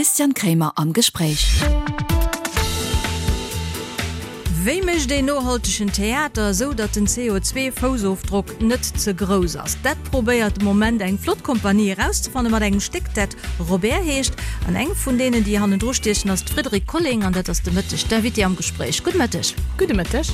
Christian Kremer am Gespréich. Wéi mécht een nohaltegen Theater, esou datt den CO2-Foussofdrock net ze grouss ass? Dat probéiert de Moment eng flott Kompanie erauszefanne mat engem Stéck, dat Robert heescht. An eng vun deenen, déi hannendru stiechen, ass d'Frédérique Colling an dat ass de Mëtteg d'Invitée am Gespréich. Gudde Mëtteg. Gudde Mëtteg.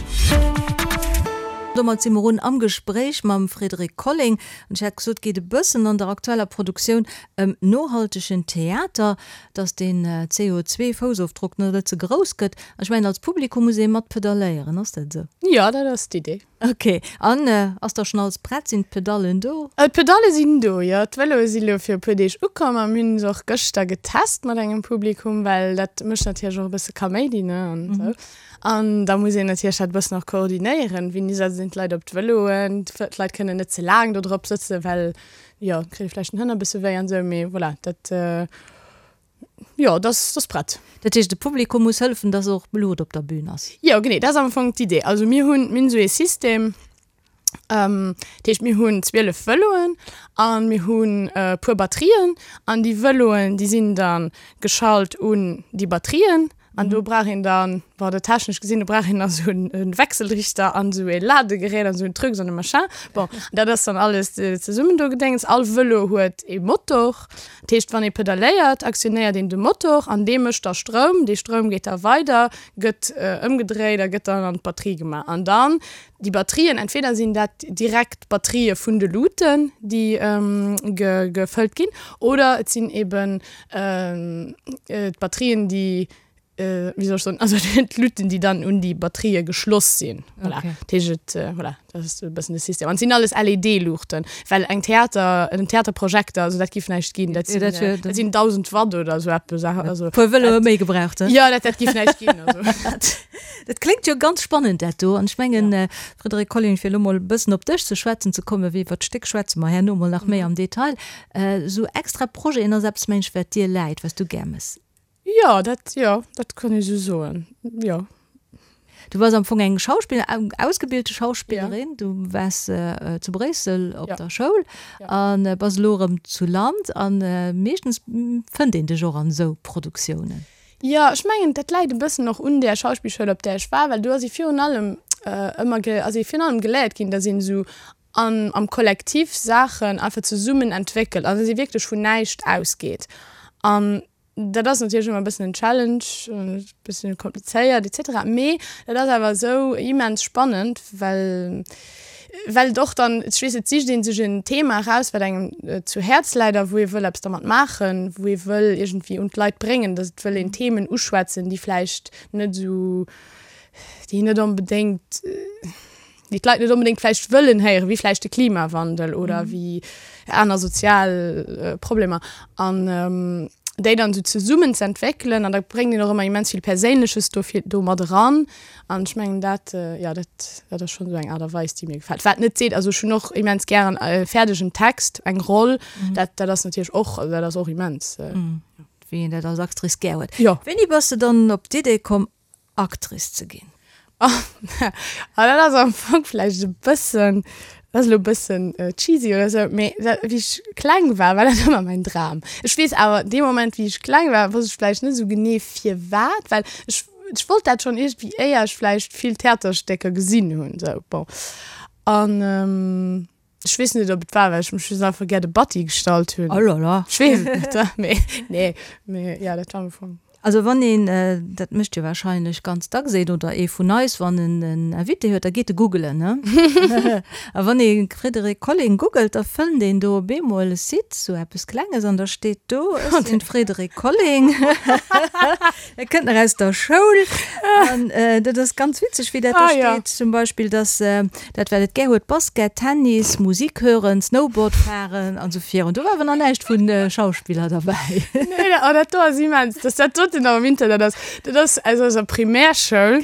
Domat si mer un am Gespréich mam Frédérique Colling. An ech hat gesot, et geet e bëssen an der aktueller Produktioun ëm nohaltegen Theater, dass den CO2-Foussofdrock net ze grouss gëtt. An ech mengen, als Publikum muss ee mat pedalléieren, ass dat esou? Jo, dat ass d'Idee. Ok, an ass da schonn alles prett? Sinn d'Pedallen do? D'Pedalle sinn do, jo. D'Vëloe si lo fir e puer Deeg ukomm a mir hunn se och gëschter getest mat engem Publikum, well dat mécht natierlech och e bësse Kaméidi, ne, an esou. An da muss een natierlech dat e bëssen och koordinéieren, wéini setzen een d'Leit op d'Vëloen, d'Leit kënnen net ze laang do drop sëtzen, well jo, kritt ee vläicht den Hënner e bësse wéi an esou, mee voilà, dat. Jo, dat ass prett. Dat heescht, de Publikum muss hëllefen, dass och Blut op der Bühn ass? Jo, genee, dat ass am Fong d'Idee. Also mir hunn, mir hunn esou ee System, dat heescht mir hunn 12 Vëloen a mir hunn e puer Batterien an déi Vëloen, déi sinn da geschalt un déi Batterien an do brauch een dann, bon, dat technesch gesinn, do brauch een da sou e Wechselrichter an esou ee Ladegerät an esou en Trucs an e Machin. Bon, dat ass dann alles zesummen do gedéngs. All Vëlo huet ee Motor. Dat heescht, wann ee pedaléiert, aktionéiert een de Motor an dee mécht da Stroum. Dee Stroum geet da weider, gëtt ëmgedréit a gëtt dann an d'Batterie gemaach. An dann déi Batterien, entweder sinn dat direkt d'Batterië vun de Luuten, déi gefëllt ginn, oder et sinn eben d'Batterien, déi wéi soll ech soen, also d'Luuten, déi dann un déi Batterië geschloss sinn. Voilà. Okay. Dat heescht, et, voilà, dat ass e bëssen de System. An et sinn alles LED-Luuchten, well eng Theater, en Theaterprojekter, also dat giff näischt ginn. Dat sinn, ja, dat, dat sinn 1.000 Watt oder esou eppes. Also, Puer Vëloe méi gebraucht, he? Ja, dat, dat giff näischt ginn. Also. Dat kléngt jo ganz spannend, dat do. An ech mengen, ja. Frédérique Colling, fir elo mol e bëssen op dech ze schwätzen ze kommen, wéi iwwer d'Stéck schwätze mer herno mol nach méi am Detail. Esou extra Projeten ass eppes, mengen ech, wat dir läit, wat s du gär mëss. Jo, dat, jo, dat kann ee sou soen, jo. Du bass am Fong eng Schauspiller, eng ausgebildete Schauspillerin. Du waars zu Bréissel op der Schoul a bass elo erëm zu Land. A meeschtens fënnt een dech och an esou Produktiounen. Jo, ech mengen, dat läit e bëssen och un där Schauspillschoul, op där ech war, well do ass ee virun allem ëmmer, ass ee virun allem geléiert ginn, datt een esou an am Kollektiv Saachen einfach zesummen entwéckelt an datt ee wierklech vun näischt ausgeet. An dat ass natierlech ëmmer e bëssen en Challenge, e bëssen komplizéiert et cetera, mee dat ass awer esou immens spannend, well well et och dann, ech weess, et sicht ee sech en Thema eraus, wat engem zu Häerz läit a wou ee wëll eppes dermat maachen, wou ee wëll iergendwéi un d'Leit bréngen, datt et wëll een Themen uschwätzen, déi vläicht net esou, déi net onbedéngt. déi d'Leit net onbedéngt vläicht wëllen héieren, wéi vläicht de Klimawandel oder wéi aner sozial Problemer an déi dann esou zesummen ze entwéckelen an da bréngt een och ëmmer immens vill Perséinleches dofir do mat eran an ech mengen dat, jo dat dat ass schonn esou eng Aart a Weis déi mir gefält. Wat net seet, also ech hunn och immens gären e fäerdegen Text, eng Roll, dat dat ass natierlech och, also dat ass och immens. Wéi een dat als Actrice gär huet. Jo. Wéini bass de dann op d'Idee komm Actrice ze ginn? Ah, dat ass am Fong vläicht e bëssen, dat ass elo e bëssen cheesy oder sou, mee dat, wéi ech kleng war, war dat ëmmer mäin Dram. Ech weess awer, dee Moment, wéi ech kleng war, wosst ech vläicht net esou genee firwat, well ech, ech wollt dat schonn iergendwéi, éier ech vläicht vill Theaterstécker gesinn hunn, sou, bon. An ech weess net, ob et war, well ech mech just einfach gär de Batti gestallt hunn. Oh là là. Ech weess et net, mee nee, mee jo, dat war am Fong. Also wann een, dat mécht jo wahrscheinlech ganz dacks een oder ee vun eis, wann en en Invité huet, da geet e googelen, ne? A wann ee Frédéric Colling googelt, da fënnt een do op eemol e Site, sou eppes Klenges, an da steet do, Ech sinn d'Frédéric Colling. Dat kënnt nach aus der Schoul. An dat ass ganz witzeg, wéi dat do steet. Zum Beispill, dass dat, wat et gär huet, Basket, Tennis, Musik hören, Snowboard fahren an esou virun. Do war awer nach näischt vu Schauspiller derbäi. Nee, oh, dat do ass immens, dass dat doten nach am Internet ass. Dat ass aus eiser Primärschoul.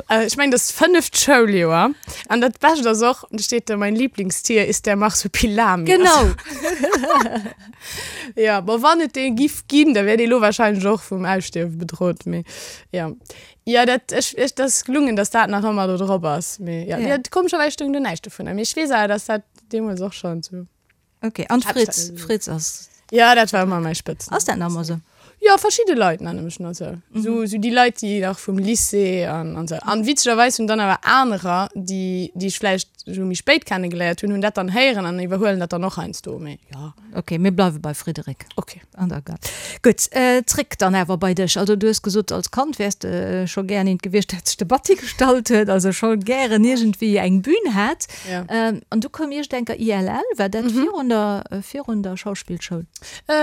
Ech mengen, dat ass d'fënneft Schouljoer. An dat Bescht ass och, do steet do, Mein Lieblingstier ist der Marsupilami. Genau. Ja, bon, wann et dee giff ginn, da wär dee lo wahrscheinlech och vum Ausstierwe bedrot, mee ja. Jo, dat, ech, ech, dat ass gelungen, dass dat nach ëmmer do drop ass, mee ja, ja. Komescherweis stoung do näischt dovunner, mee ech weess awer, dass dat deemools och schonn sou. Okay, an Fritz, Fritz ass. Ja, dat war ëmmer mäi Spëtznumm. Ass dat nach ëmmer sou? Jo. Jo, verschidde Leit nenne mech nach esou. Esou, esou déi Leit, déi nach vum Lycée an, an esou. An witzegerweis hunn dann awer anerer, déi, déi ech vläicht esou méi spéit kennegeléiert hunn, hunn dat dann héieren an iwwerhuelen dat dann och heiansdo. Mee jo. Ok, mir bleiwe bei Frédéric. Ok. An der Gare. Gutt, zréck dann awer bei dech. Also du hues gesot, als Kand wäers de scho gären eent gewiescht, dat sech de Batti gestallt huet, also scho gären iergendwéi eng Bühn hat. Ja. An du koum iergendenker ILL, war dat virun der, virun der Schauspillschoul?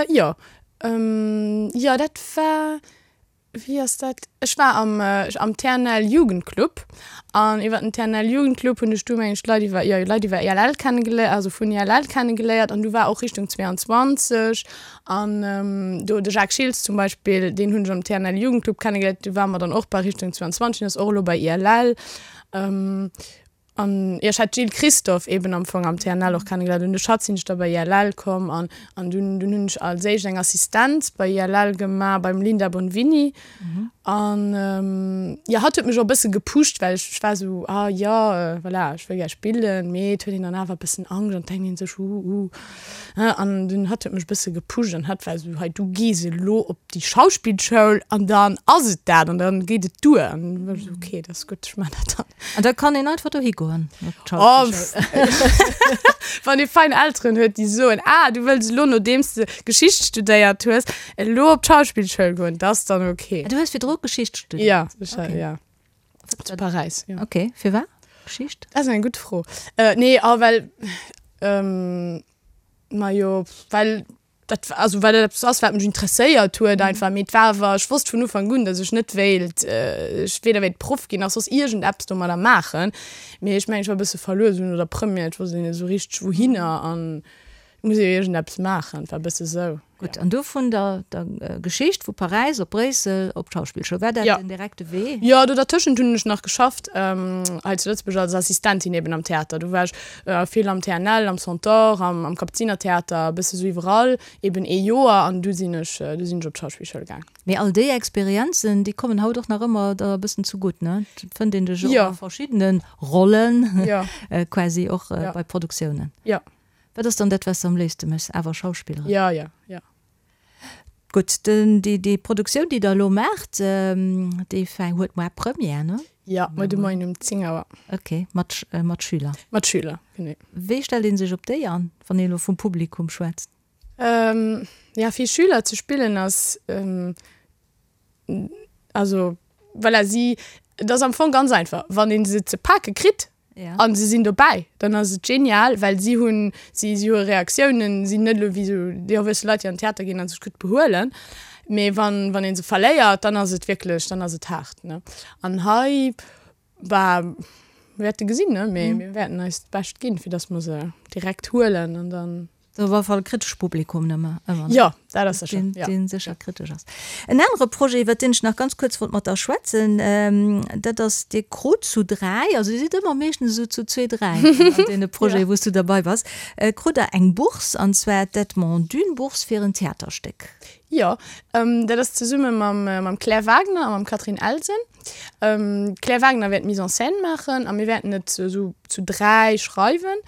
Jo. Jo, dat war, wéi ass dat, ech war am, am TNL Jugendclub an iwwer den TNL Jugendclub hunn ech du mengen ech Leit iwwer, jo Leit iwwer ILL kennegeléiert, also vun ILL kennegeléiert an du war och Richtung 22 an do de Jacques Schiltz zum Beispill, deen hunn ech am TNL Jugendclub kennegeléiert, du ware mer dann och bei Richtung 22, deen ass och elo bei ILL. An jo, ech hat d'Jill Christophe eben am Fong am TNL och kennegeléiert. Un de Schatz sinn ech da bei ILL komm an an dunn dunn hunn ech als éischt eng Assistenz bei ILL gemaach beim Linda Bonvini. An jo, hatt huet mech och e bësse gepusht, well ech ech war esou, ah jo, voilà, ech wëll gär spillen, mee et huet een dann awer e bëssen Angscht an et denkt een sech, uh uh. An dunn hatt huet mech e bësse gepusht an hatt war esou, hei du gees elo op déi Schauspillschoul an dann ass et dat an dann geet et duer. An du war ech esou, okay, dat ass gutt, ech maachen dat dann. An da kann een einfach dohi goen. Oh, wann ee fein Elteren huet, déi soen, ah, du wëlls elo, nodeems de Geschicht studéiert hues, elo op d'Schauspillschoul goen, dat ass dann ok. Ah, du hues virdru Geschicht studéiert? Ja, ech, okay. ja. Zu Paräis, ja. Ok, firwat Geschicht? Dat ass eng gutt Fro. Äh, nee, ah, well, ähm, majo, well Dat war, also well dat eppes ass, wat mech interesséiert huet einfach. Mee et war awer, ech wosst vun Ufank un, datt ech net wéilt, ech weder wéilt Proff ginn nach soss iergendeppes domadder maachen. Mee ech mengen, ech war e bësse verluer esou no der Première, et wosst een net esou richteg wouhinner an et muss ee jo iergendeppes maachen. Et war e bësse sou. Gutt, an du vun der der Geschicht vu Paräis op Bréissel op d'Schauspillschoul, war dat den direkte Wee? Jo, do dertëschent hunn ech nach geschafft hei zu Lëtzebuerg als Assistentin eben am Theater. Do war ech Vill am TNL, am Centaure, am Kapuzinertheater, e bësse sou iwwerall, eben ee Joer an du sinn ech, du sinn ech op d'Schauspillschoul gaang. Mee all déi Experienzen, déi kommen haut och nach ëmmer der e bëssen zugutt, ne? Et fënnt een dech och a verschiddene Rollen, quasi och bei Produktiounen. Jo. Wat ass dann dat, wat s de am léifste méchs? Awer Schauspilleren? Jo, jo, jo. Gutt, den, déi, déi Produktioun, déi Der elo maacht, déi fäng, huet moar Première, ne? Jo, muer de Moien um 10 Auer. Ok, mat, mat Schüler? Mat Schüler, genee. Wéi stellt ee sech op déi an, wann ee elo vum Publikum schwätzt? Ja, fir Schüler ze spillen ass, also voilà, si, et ass am Fong ganz einfach, wann ee se ze pake kritt, Ja. An se sinn dobäi, dann ass et genial, well si hunn, si, si hu Reaktiounen, sinn net elo wéi esou déi erwuesse Leit, déi an den Theater ginn a sech gutt behuelen. Mee wann, wann ee se verléiert, dann ass et wierklech, dann ass et haart, ne. An hei, bah, mir wäerte gesinn, ne, mee mir wäerten eist Bescht ginn, fir datt mer se direkt huelen an dann. Op alle Fall e kritescht Publikum nëmme ëmmer, ne? Jo, dat ass sécher, Deen, jo. deen sécher kritesch ass. En anere Projet, iwwert deen ech nach ganz kuerz wollt mat der schwätzen, dat ass, Dir krut zu dräi, also Dir sidd ëmmer meeschtens esou zu zwee, dräi an deene Projeten, wou s du derbei bass, krut Der eng Bourse, an zwar d'Edmond Dune-Bourse fir en Theaterstéck. Jo, dat ass zesumme mam, mam Claire Wagner a mam Catherine Elsen. D'Claire Wagner wäert d'Mise en scène maachen a mir wäerten et esou zu dräi schreiwen.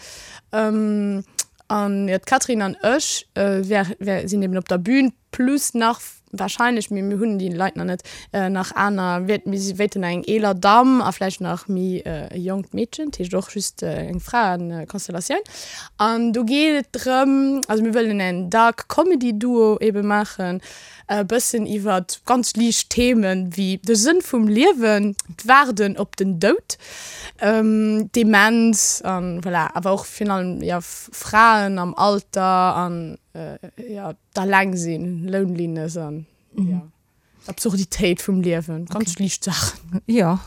An jo, d'Catherine an ech sinn eben op der Bühn, plus nach wahrscheinlech, mee mir hunn déi Leit nach net, nach aner, mir wéilten nach eng eeler Damm a vläicht nach méi e jonkt Meedchen, dat heescht och just eng Fraekonstellatioun. An do geet et drëm, also mir wëllen en Dark Comedy Duo ebe maachen, E bëssen iwwert ganz liicht Themen wéi de Sënn vum Liewen, d'Waarden op den Doud, Demenz an voilà, awer och virun allem jo Fraen am Alter an jo d'Allengsinn, Loneliness an jo d'Absurditéit vum Liewen, ganz liicht Saachen. Jo,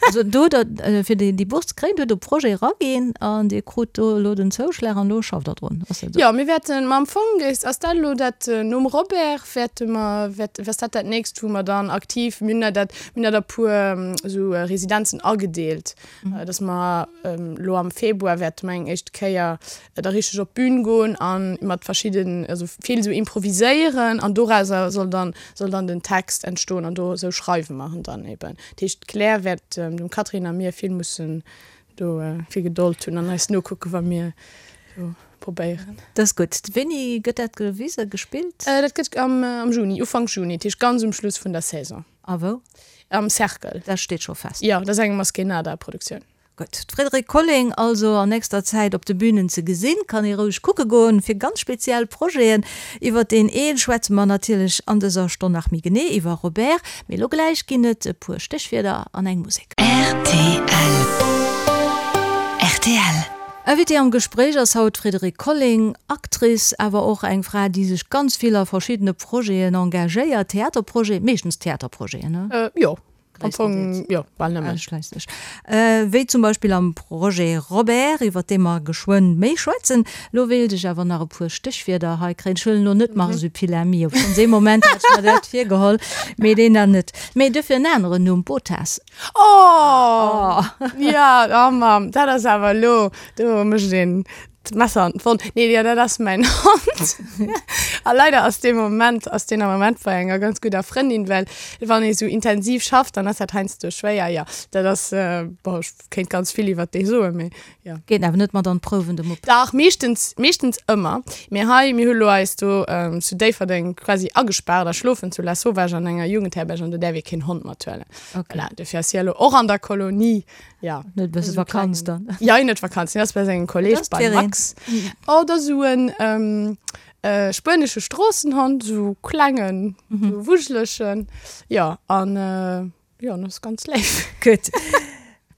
also do hutt Der fir déi Bourse ze kréien, do hutt Der e Projet eraginn an Dir krut do elo den Zouschlag an elo schafft Der drun, ass dat esou? Jo, mir wäerten, ma am Fong ass dat elo dat, nom Robert wäerte mer, wäert, ass dat dat nächst, wou mer dann aktiv, mir hunn der dat, mir hunn dat a puer esou Residenzen agedeelt, dass mer elo am Februar wäerte mer eng éischt Kéier da richteg op d'Bün goen a mat verschidden, also vill esou improviséieren an dorauser soll dann, soll dann den Text entstoen an do esou schreiwe mer en dann eben. Dat heescht d'Claire wäert dem Catherine a mir vill mussen do vill Gedold hunn an eis nokucken, wa mir do. Probéieren. Dat ass gutt. Wéini gëtt dat gewisen, gespillt? Dat gëtt am Juni, Ufank Juni, dat heescht ganz um Schluss vun der Saison. A wou? Am Cercle. Dat steet scho fest? Jo, dat ass eng Maskénada-Produktioun. Gutt. D'Frédérique Colling also an nächster Zäit op de Bünen ze gesinn. Kann ee roueg kucke goen fir ganz speziell Projeten. Iwwer deen ee schwätze mer natierlech an dëser Stonn nach méi genee, iwwer Robert. Mee elo gläich ginn et e puer Stéchwierder an eng Musek. Rtl. Rtl. Invitée am Gespréich ass haut d'Frédérique Colling, Actrice, awer och eng Fra, déi sech ganz vill a verschiddene Projeten engagéiert, Theaterprojeten, meeschtens Theaterprojeten, ne? Jo, am Fong jo, bal nëmmen. Ausschliisslech. Wéi zum Beispill am Projet Robert, iwwer dee mer geschwënn méi schwätzen. Lo wéilt ech awer nach e puer Stéchwierder hei kréien. Ech huelen elo net Marsupilami, obschonns ee Moment hat ech mer dat virgeholl, mee deen dann net. Mee duerfir en aneren Numm, Botas. Oh! Ja, oh Mamm, dat ass awer elo, do mécht een d'Messer an d'Wonn. Nee, jo, dat ass mäin Hond. A leider ass dee Moment, ass deen am Moment bei enger ganz gudder Frëndin, well wann ee sou intensiv schafft, dann ass dat heiansdo schwéier. Jo, dat ass, bon, ech kéint ganz vill iwwert dee soen, mee jo. Geet awer net mat an d'Prouwen, de Mupp? Dach, meeschtens, meeschtens ëmmer. Mee hei, mir hu lo eis do zu Déifferdeng quasi agespaart a schlofen zu Lasauvage an enger Jugendherberg an do däerf ee keen Hond mathuelen. Okay. Voilà, dofir ass hie elo och an der Kolonie. Ja. Net e bësse Vakanz dann? Ja, hien huet Vakanz. Hien ass bei sengem Kolleeg, beim Max. Oh, dat ass esou en spuenesche Stroossenhond, esou klengen, esou wuschelegen. Jo, an jo, en ass ganz léif. Gutt.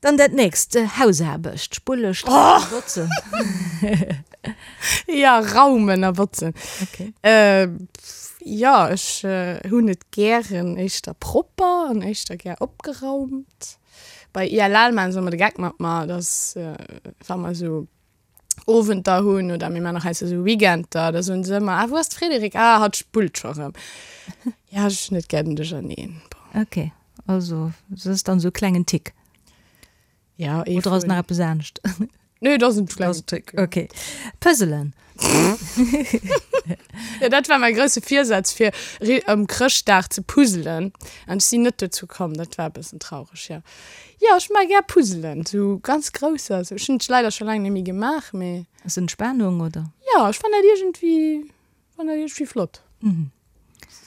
Dann dat nächst, Hausaarbecht, Spulle, Streichen, botzen. Ja, raumen a botzen. Okay. Jo, ech hunn et gären éischter propper an éischter gär opgeraumt. Bei ILL maachen se ëmmer de Geck mat mer, dass wa mer esou Owenter hunn oder mir maachen och heiansdo esou Weekender, da soen se ëmmer, Ah, wou ass d'Frédérique? Ah, hatt spullt scho rëm. Ja, ech hunn et gär den Duercherneen. Bon. Okay, also dat ass dann esou e klengen Tick. Ja, ee Oder ass nach eppes anescht? Nee, dat ass en klengen Tick. Okay. Puzzelen. Ja, dat war mäi grousse Virsaz fir ëm Chrëschtdag ze puzzelen. An ech sinn net dozou komm. Dat war e bëssen traureg, jo. Jo, ech mag gär puzzelen, sou ganz grousser. Ech hunn et leider scho laang net méi gemaach, mee. Ass Entspanung, oder? Jo, ech fannen dat iergendwéi, fannen dat iergendwéi flott.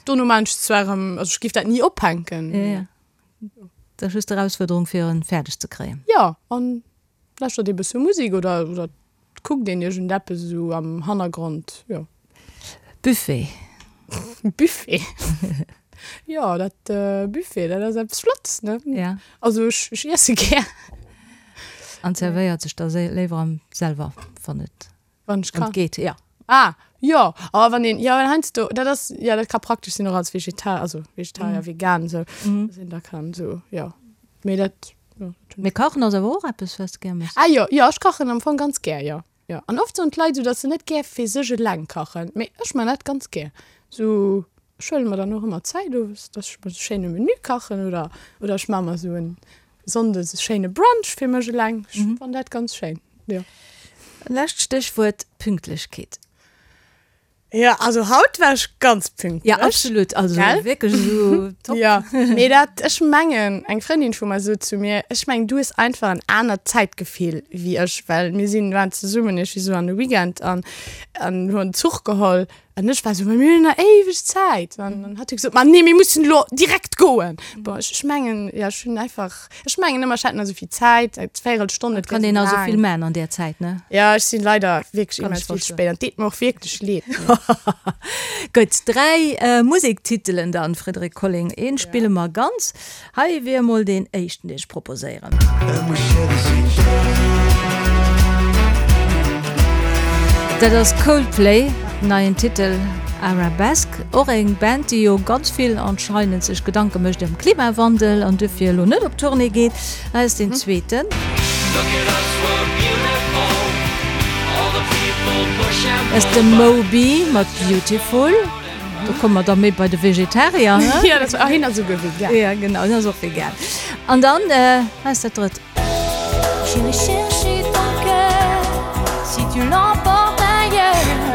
Dono maan ech zwar erëm, also ech géif dat ni ophänken. Ja, ja. Dat ass just d'Erausfuerderung fir en fäerdeg ze kréien. Jo, an lauschtert ee bësse Musek oder oder kuckt een iergendeppes esou am Hannergrond, jo. Buffet. Buffet? Jo, dat Buffet, dat ass eppes Flottes, ne? Ja. Also ech ech iesse gär. An zerwéiert sech da léiwer am selwer, wann et Wann ech kann. Geet, ja. Ah, jo, awer wann een, jo, well heiansdo, dat ass, jo, dat ka praktesch sinn och als Vegetar, also Vegetarier, vegan, esou, dass een da kann esou, jo, mee dat, jo, dat hunn Mee kachen ass awer och eppes, wat s de gär méchs? Ah jo, jo, ech kachen am Fong ganz gär, jo, jo. An oft soen d'Leit esou, dass se net gär fir sech eleng kachen, mee ech man dat ganz gär, esou, ech huele mer dann och ëmmer Zäit owes, dass ech mer esou schéine Menü kachen oder, oder ech man mer esou en Sonndes e schéine Brunch fir mech eleng. Ech fannen dat ganz schéin, jo. Lescht Stéchwuert, Pünktlechkeet. Jo, also haut war ech ganz pünktlech. Ja, absolut, also wierklech esou top. Jo, mee dat, ech mengen, eng Frëndin vu mer sot zu mir, ech mengen, du hues einfach en anert Zäitgefill wéi ech, well mir sinn, waren zesummen iergendwéi esou an de Weekend an an hunn Zuch geholl An ech war esou, ma mir hunn nach éiweg Zäit. An dann hat hie gesot, ma nee, mir mussen elo direkt goen. Bon, ech, ech mengen, ja, ech hunn einfach, ech mengen ëmmer, ech hätt nach esou vill Zäit, eng Véirelstonn, et wär Kann een esou nach esou vill laang. man an där Zäit, ne? Ja, ech sinn leider wierklech Kann ech immens vill ze verstoen. spéit an et deet mer och wierklech leed. Gutt, 3 Musektitelen dann, Frédérique Colling. Een spille mer ganz. Hei wier emol deen éischten, deen ech proposéieren. Dat ass Coldplay, neien Titel Arabesque. Och eng Band, déi jo ganz vill anscheinend sech Gedanke mécht ëm Klimawandel an duerfir elo net op Tournée geet. Hei ass deen zweeten. Dat ass de Moby mat Beautiful. Do komme mer da méi bei de Vegetarier, he? Ja, dat, ah, hien ass esouguer vegan. Ja, genau, hien ass och vegan. An dann, hei ass dat drëtt.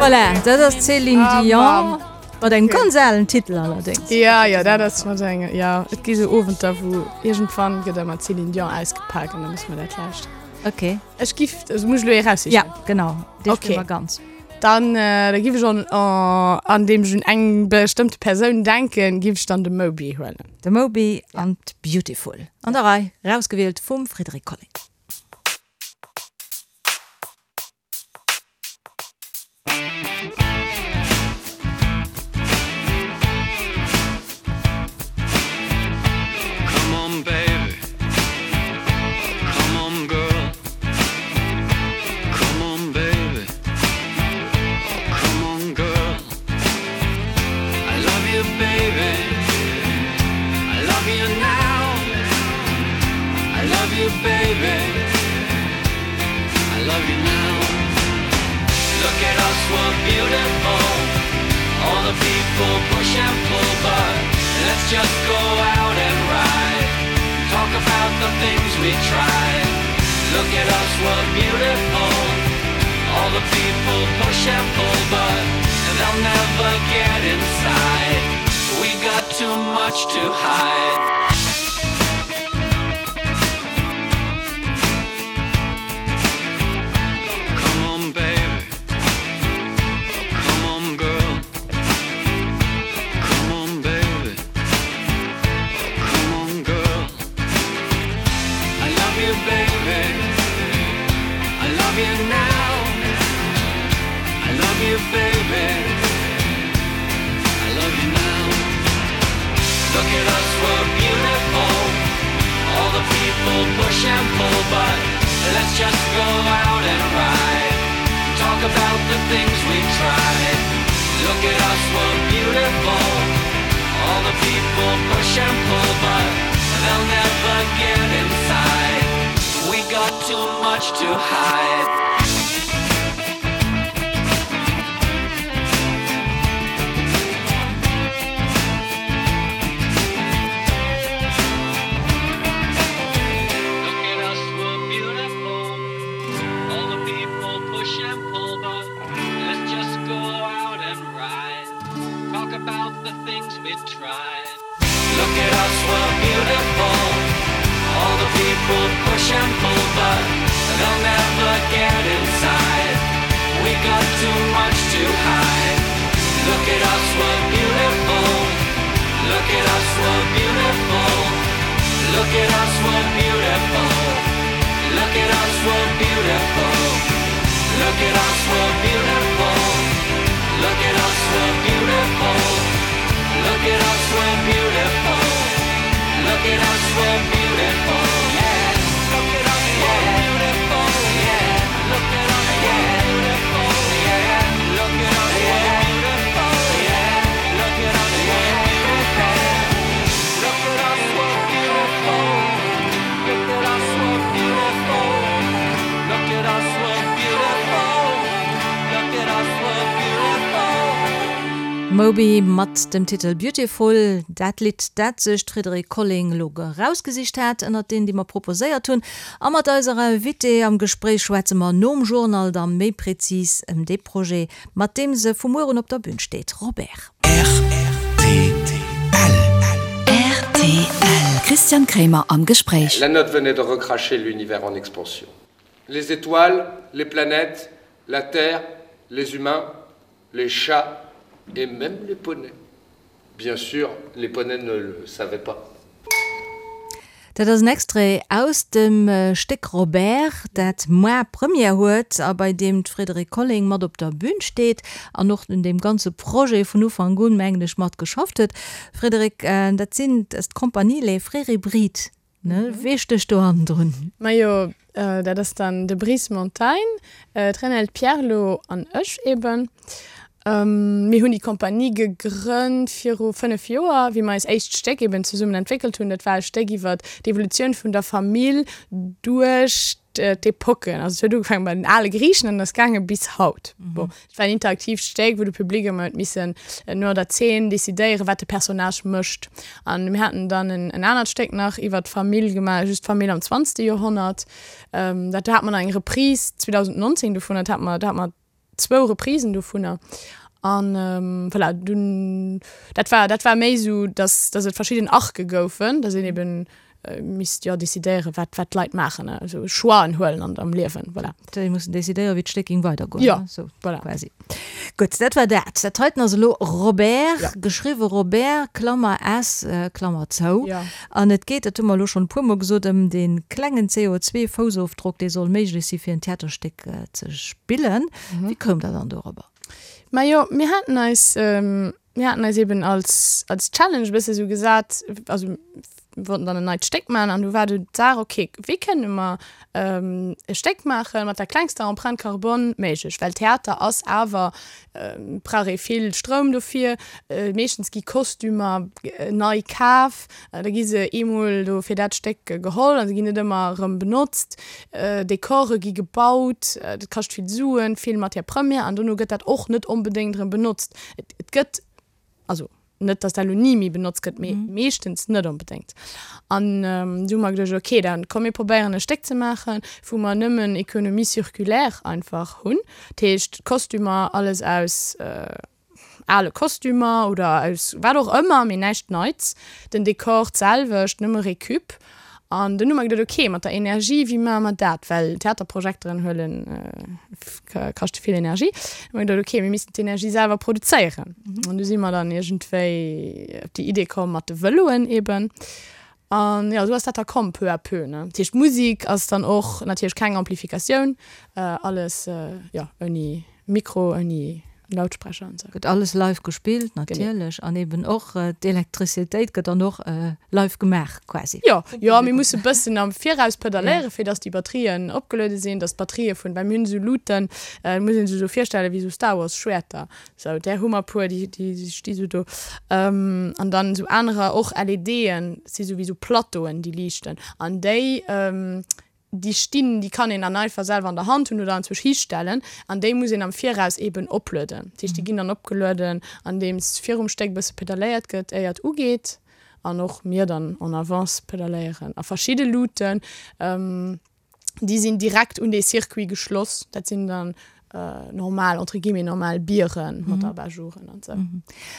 Voilà, dat ass d'Céline Dion mat engem ganz alen Titel allerdéngs. Ja, ja, dat ass mat engem, ja, et gi sou Owenter, wou iergendwann gëtt ëmmer d'Céline Dion ausgepak an da muss mer dat lauschteren. Okay. Ech giff, also muss ech elo ee raussichen? Ja, genau, dee spille mer ganz. Dann da giff ech an an deem ech un eng bestëmmte Persoun denken, giff ech dann de Moby huelen. De Moby an d'Beautiful an der Rei, rausgewielt vum Frédéric Colling. Moby mat dem Titel Beautiful, dat Lidd, dat sech d'Frédérique Colling elo erausgesicht hat ënnert deenen, déi mer proposéiert hunn. A mat eiser Invitée am Gespréich schwätze mer nom Journal da méi prezis ëm dee Projet, mat deem se vu muer un op der Bün steet. Robert. Rtl. Rtl. Christian Kremer am Gespréich. La note venait de recracher l'univers en expansion. Les étoiles, les planètes, la terre, les humains, les chats et même les poneys. Bien sûr, les poneys ne le savaient pas. Dat ass en Extrait aus dem Stéck Robert, dat moar Première huet a bei deem d'Frédérique Colling mat op der Bün steet an och un deem ganze Projet vun Ufank un, mengen ech, mat geschafft huet. Frédérique, dat sinn, dat ass d'Compagnie Les Frères Hybrides, ne? Wee stécht do hannendrun? Majo, dat ass dann de Brice Montagne, d'Renelde Pierlot an ech eben. Mir hunn déi Compagnie gegrënnt viru 5 Joer, wéi mer eis éischt Stéck eben zesummen entwéckelt hunn. Dat war e Stéck iwwer d'Evolutioun vun der Famill duerch d'Epocken. Also et huet ugefaange bei den ale Griichen an ass gaange bis haut. Bon, et war en interaktiivt Stéck, wou de Public ëmmer huet missen no der Zeen decidéieren, wat de Personnage mécht. An mir haten dann en anert Stéck nach iwwer d'Famill gemaach, just d'Famill am zwanzegste Joerhonnert. Dat do hate mer nach eng Reprise 2019 dovun, dat hate mer, do hate mer zwou Reprisen dovunner an voilà dunn dat war dat war méi esou dass dass et verschidden Arcë goufen, dass een eben. Misst jo decidéieren, wat, wat d'Leit maachen, also Choixen huelen an am Liewen, voilà. Déi mussen decidéieren, wéi d'Stéck géing weidergoen, Jo, sou voilà. quasi. Gutt, dat war dat. Dat heiten ass elo Robert, Ja. geschriwwe Robert, Klammer S, Klammer zou. Ja. An et geet, dat hu mer elo schonn e puermol gesot, ëm dee klengen CO2-Foussofdrock, dee soll méiglech si fir en Theaterstéck ze spillen. Wéi koum Der dann dorobber? Majo, mir haten eis, Mir haten eis eben als, als Challenge e bësse sou gesat, also mir wollten dann en neit Stéck maachen an du war du d'Saach, okay, wéi kënne mer e Stéck maache mat der klengster Empreinte carbone méiglech? Well Theater ass awer, brauch ee vill Stroum dofir, meeschtens gi Kostümer nei kaf, da gi se eemol do fir dat Stéck geholl a se ginn net ëmmer erëm benotzt, Dekore gi gebaut, dat kascht vill Suen, vill Matière première an dono gëtt dat och net onbedéngt erëm benotzt. Et, et gëtt, also net, datt dat elo ni méi benotzt gëtt, mee meeschtens net onbedéngt. An du hu mer geduecht, okay, da komm mir probéieren e Stéck ze maachen, wou mer nëmmen Économie circulaire einfach hunn. Dat heescht, d'Kostümer, alles aus ale Kostümer oder aus wat och ëmmer, mee näischt Neits. Den Dekor d'selwecht, nëmme Récup. An dunn hu mer geduet, ok, mat der Energie, wéi maache mer dat? Well Theaterprojekteren huelen, kaschte vill Energie. Hu mer geduet, ok, mir missten d'Energie selwer produzéieren. An du si mer dann iergendwéi op déi Idee komm mat de Vëloen eben. An jo, esou ass dat da komm, peu à peu, ne. Dat heescht, d'Musek ass dann och natierlech keng Amplifikatioun, alles, jo, ouni Mikro, ouni Lautsprecher an sou. Gëtt alles live gespillt natierlech an eben och d'Elektrizitéit gëtt dann och live gemaach quasi. Jo, jo, mir musse bëssen am Viraus pedaléieren, fir dass déi Batterien opgeluede sinn, dass d'Batterië vun, well mir hunn esou Luuten, muss een sech esou virstellen wéi esou Star Wars Schwäerter, sou där hu mer puer, déi déi sti sou do an dann esou anerer och LEDen, si sou wéi sou Plateauen déi liichten an déi Déi stinn, déi kann een dann einfach selwer an der Hand hunn oder anzwousch histellen an déi muss een am Viraus eeben oplueden. Dat heescht, déi ginn dann opgelueden, andeems virum Stéck e bësse pedaléiert gëtt, éier et ugeet an och mir dann en avance pedaléieren. A verschidde Luuten, déi sinn direkt un dee Circuit geschloss, dat sinn dann normal, entre guillemets normal Bieren mat Abat-jouren an sou.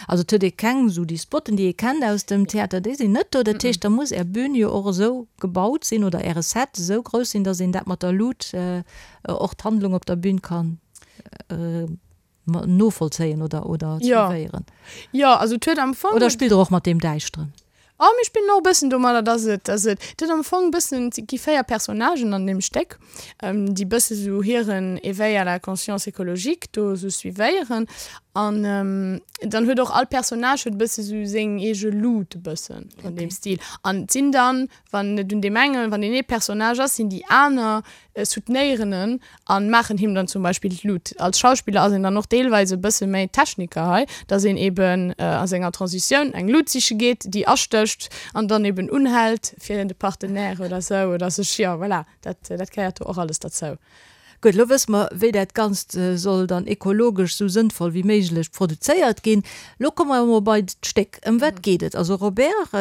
Also et huet ee keng esou déi Spotten, déi ee kennt aus dem Theater, déi sinn net do. Dat heescht, da muss Är Bühn jo och esou gebaut sinn oder Äre Set esou grouss sinn, datt een dat mat der Lut och d'Handlung op der Bühn kann novollzéien oder oder suivéieren. Jo, also et huet am Fong. Oder spillt Der och mat deem Däischteren? Oh, mir spillen och e bëssen domadder, dass et, dass et, et huet am Fong e bëssen, et gi 4 Personnagen an deem Stéck, déi bësse sou hiren Éveil à la conscience écologique do sou suivéieren. An dann huet och all Personnage huet e bësse sou seng eege Luut e bëssen an deem Stil. An et sinn dann, wann et un deem engen, wann deen ee Personnage ass, sinn déi aner soutenéieren en an maachen him dann zum Beispill d'Lut. Als Schauspiller ass een dann och deelweis e bësse méi Techniker hei, dass een eben a senger Transitioun eng Lut siche geet, déi astécht an dann eben unhält fir de Partenaire oder sou oder sech, jo voilà, dat dat gehéiert do och alles derzou. Gutt, elo wësse mer, wéi dat Ganzt soll dann ekologesch sou sënnvoll wéi méiglech produzéiert ginn. Lo komme mer emol bei d'Stéck. Ëm wat geet et? Also Robert,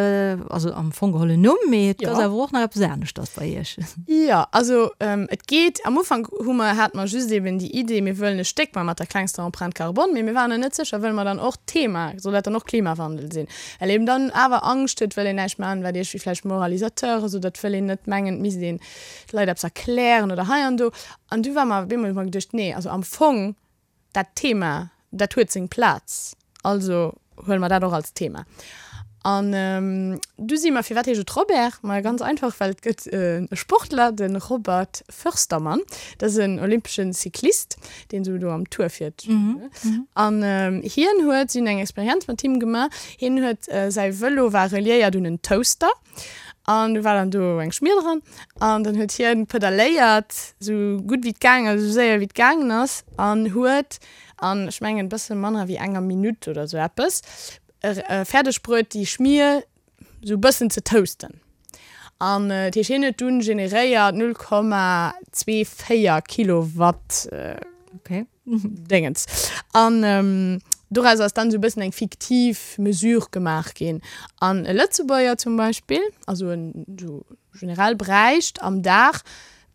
also am Fong geholl en Numm, mee et ass awer och nach eppes aneschters bei Iech. Jo, also et geet, am Ufank hu mer, hate mer just eben déi Idee, mir wëllen e Stéck man mat der klengster Empreinte carbone, mee mir waren nach net sécher, wëlle mer dann och d'Thema, soll dat dann och Klimawandel sinn? Well eben dann awer Angscht huet, wëll een näischt man, wat iergendwéi vläicht Moralisateur ass oder et wëll een net mengen, et misst een de Leit eppes erklären oder hei an do. An du war mer op eemol, hu mer geduecht, nee, also am Fong dat Thema, dat huet seng Plaz, also huele mer dat och als Thema. An du si mer, firwat heescht et Robert? Ma ganz einfach, well et gëtt e Sportler, de Robert Förstermann, dat ass en olympesche Cyclist, deen esou do am Tour fiert. An hien huet, si hunn eng Experienz mat him gemaach, hien huet, säi Vëlo war reliéiert un en Toaster, An du war dann do eng Schmier dran an dann huet hien pedaléiert sou gutt wéi et gaang ass, sou séier wéi et gaangen ass an huet an ech mengen bësse manner wéi enger Minutt oder sou eppes fäerdeg bruet déi Schmier sou bëssen ze toasten. An dat heescht hien huet dunn generéiert 0,24 Kilowatt. Okay. Déngens. An doraus ass dann esou e bëssen eng fiktiv Mesure gemaach ginn. An e Lëtzebuerger zum Beispill, also en esou generell, bräicht am Dag.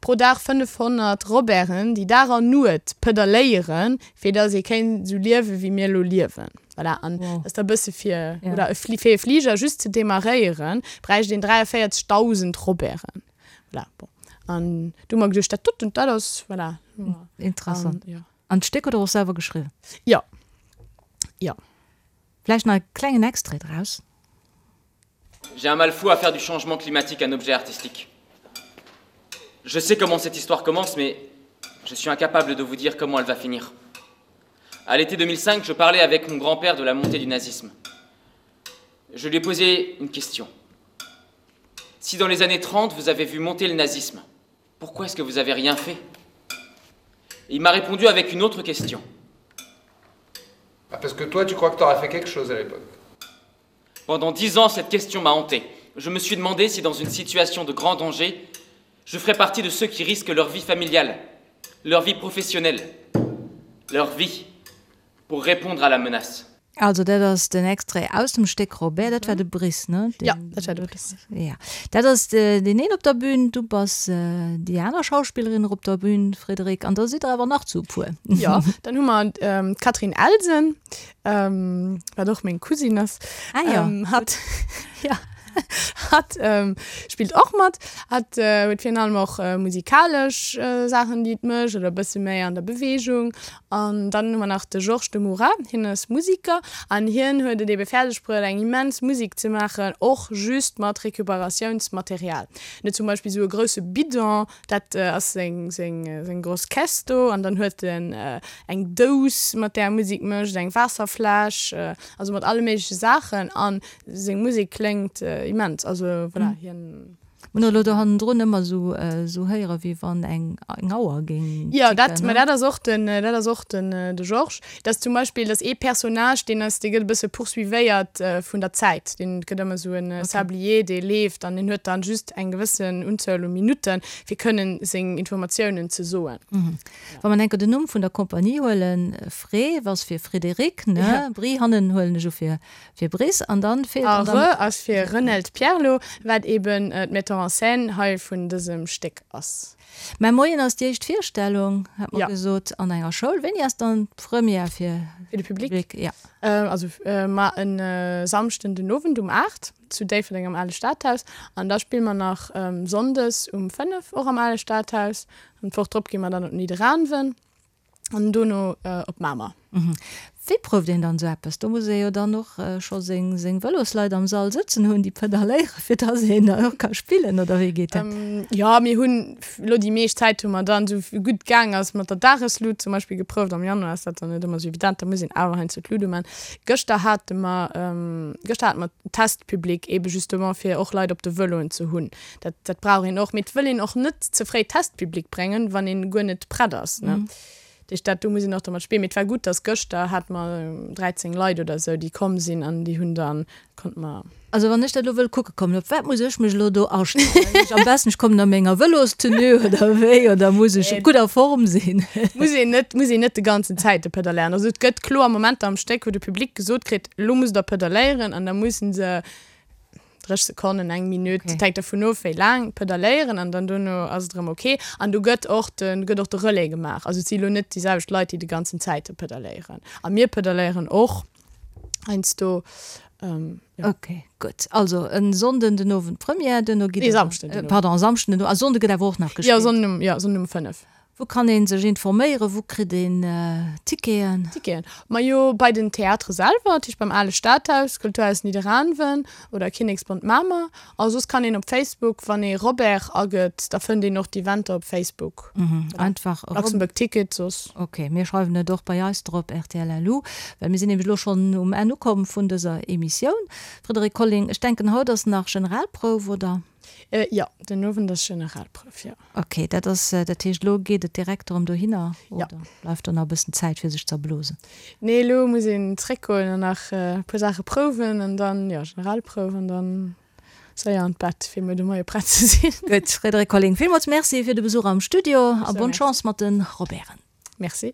Pro Dag 500 Roberten, déi Dag an Nuet pedaléieren, fir dass ee kéint esou liewen, wéi mir elo liewen. Voilà, an dat ass da e bësse fir, oder e fir e Fliger just ze demarréieren, bräicht een 43.000 Roberten. Voilà, bon. An du hu mer geduecht, dat doten, dat ass, voilà. Interessant. An, ja. An d'Stéck huet Der och selwer geschriwwen? Jo. Jo. Vläicht nach e klengen Extrait draus. J'ai un mal fou à faire du changement climatique un objet artistique. Je sais comment cette histoire commence, mais je suis incapable de vous dire comment elle va finir. À l'été 2005, je parlais avec mon grand-père de la montée du nazisme. Je lui ai posé une question. Si dans les années 30, vous avez vu monter le nazisme, pourquoi est-ce que vous avez rien fait Il m'a répondu avec une autre question. Ah, parce que toi, tu crois que tu aurais fait quelque chose à l'époque. Pendant dix ans, cette question m'a hanté. Je me suis demandé si dans une situation de grand danger, je ferais partie de ceux qui risquent leur vie familiale, leur vie professionnelle, leur vie pour répondre à la menace. Also dat ass den Extrait aus dem Stéck Robert, dat war de Brice, ne? Jo, dat war de Brice. Ja, dat ass deen een op der Bühn, du bass déi aner Schauspillerin op der Bühn, Frédérique, an da sidd der awer nach zu e puer. Jo, dann hu mer d'Catherine Elsen, wat och meng Cousine ass. Ah jo. Hatt, ja, hatt spillt och mat. Hatt huet virun allem och musikalesch Saachen, déi et mécht, oder e bësse méi an der Beweegung. An dann hu mer nach de Georges de Moura, hien ass Musiker an hien huet et ebe fäerdeg bruet, eng immens Musek ze maachen, och just mat Recuperatiounsmaterial. En huet zum Beispill esou e grousse Bidon, dat ass seng, seng, seng gross Caisse do, an dann huet en eng Dous, mat där e Musek mécht, eng Waasserfläsch, also mat alle méigleche Saachen. A seng Musek kléngt immens, also voilà, hien. Mir hunn elo do hannendrun ëmmer esou esou héiere wéi wann eng eng Auer géing Jo, dat, mä dat ass och den, dat ass och den de Georges. Dat ass zum Beispill, dat ass ee Personnage, deen ass, dee gëtt e bësse poursuivéiert vun der Zäit. Deen gëtt ëmmer esou en Sablier, dee leeft an deen huet dann just eng gewëssen Unzuel u Minutten, fir kënnen seng Informatiounen ze soen. Wa mer enker den Numm vun der Kompanie huelen, Fré ass fir Frédéric, ne? Bri hannen huelen ech u fir Fir Brice an dann feelt an dann. A Re ass fir Renelt Pierlot, wat eben d'Metteur en scène hei vun dësem Stéck ass. Mä moien ass déi éischt Virstellung, hat mer gesot, an enger Schoul. Wéini ass dann d'Première fir de Public? Ja. Also mar en Samschden den Owend um 8 zu Déifferdeng am Ale Stadhaus an da spille mer nach Sonndes um 5 och am Ale Stadhaus an d'Woch drop gi mer dann op Nidderaanwen. An dono op Mamer. Wéi prouft een dann esou eppes? Do muss ee jo dann och scho seng seng Vëlosleit am Sall sëtzen hunn, déi pedaléieren, fir dass een dann och ka spillen, oder wéi geet dat? Jo, mir hunn elo déi meescht Zäit hu mer dann, esou gutt gaang ass, mat der Dageslut zum Beispill geprouft. Am Januar ass dat dann net ëmmer esou evident, da muss een awer heiansdo d'Lut uman. Gëschter hate mer, gëschter hate mer Testpublic, ebe justement fir och Leit op de Vëloen ze hunn. Dat, dat brauch een och. Mee et wëll een och net ze fréi Testpublic bréngen, wann een guer net prett ass. Ne? Mm. Dat heescht, dat do muss een och dermat spillen. Mee et war gutt, dass gëschter hate mer 13 Leit oder esou, déi komm sinn an déi hunn dann, konnte mer. Also wann ech dat elo wëll kucke kommen, op wat muss ech mech elo do astellen? Ech am besten, ech kommen a menger Vëlostenue oder wéi? Oder muss ech gutt a Form sinn? Muss een net, muss een net de ganzen Zäite pedaléieren. Also et gëtt kloer Momenter am Stéck, wou de Public gesot kritt, elo musst der pedaléieren an da mussen se 30 Sekonnen, eng Minutt, okay. hänkt dervun of, wéi laang, pedaléieren an dann dono ass et erëm ok. An do gëtt och de, gëtt och de Relais gemaach. Also et si lo net déi selwecht Leit, déi de ganzen Zäite pedaléieren. A mir pedaléieren och heiansdo. Ähm, ja. Ok, gutt. Also en Sonnden den Owend Première, duerno gitt Nee, Samschden den Owend. Pardon, Samschden den Owend. A Sonnde gëtt awer och nach gespillt? Ja, Sonnden um, ja, Sonnden um 5. Wou kann een sech informéieren? Wou kritt een Ticketen? Ticketen? Majo bei den Theatere selwer, dat heescht beim Ale Stadhaus, Kulturhaus Nidderaanwen oder Kinneksbond Mamer. A soss kann een op Facebook, wann ee Robert agëtt, da fënnt een och d'Eventer op Facebook. Einfach Luxembourg Ticket soss. Ok, mir schreiwen et och bei eis drop, rtl LU, well mir sinn nämlech elo schonn um Enn ukomm vun dëser Emissioun. Frédérique Colling, ech denken haut ass nach Generalprouf, oder? Jo, den Owend ass Generalprouf, jo. Ok, dat ass, dat heescht elo geet et direkt erëm dohinner oder bleift do nach e bëssen Zäit fir sech z'erblosen? Nee, elo muss een zréckgoen an nach e puer Saache prouwen an dann, jo, Generalprouf an dann séier an d'Bett fir muer de Moie prett ze sinn. Gutt, Frédérique Colling, villmools Merci fir de Besuch am Studio a bonne Chance mat de Roberten. Merci.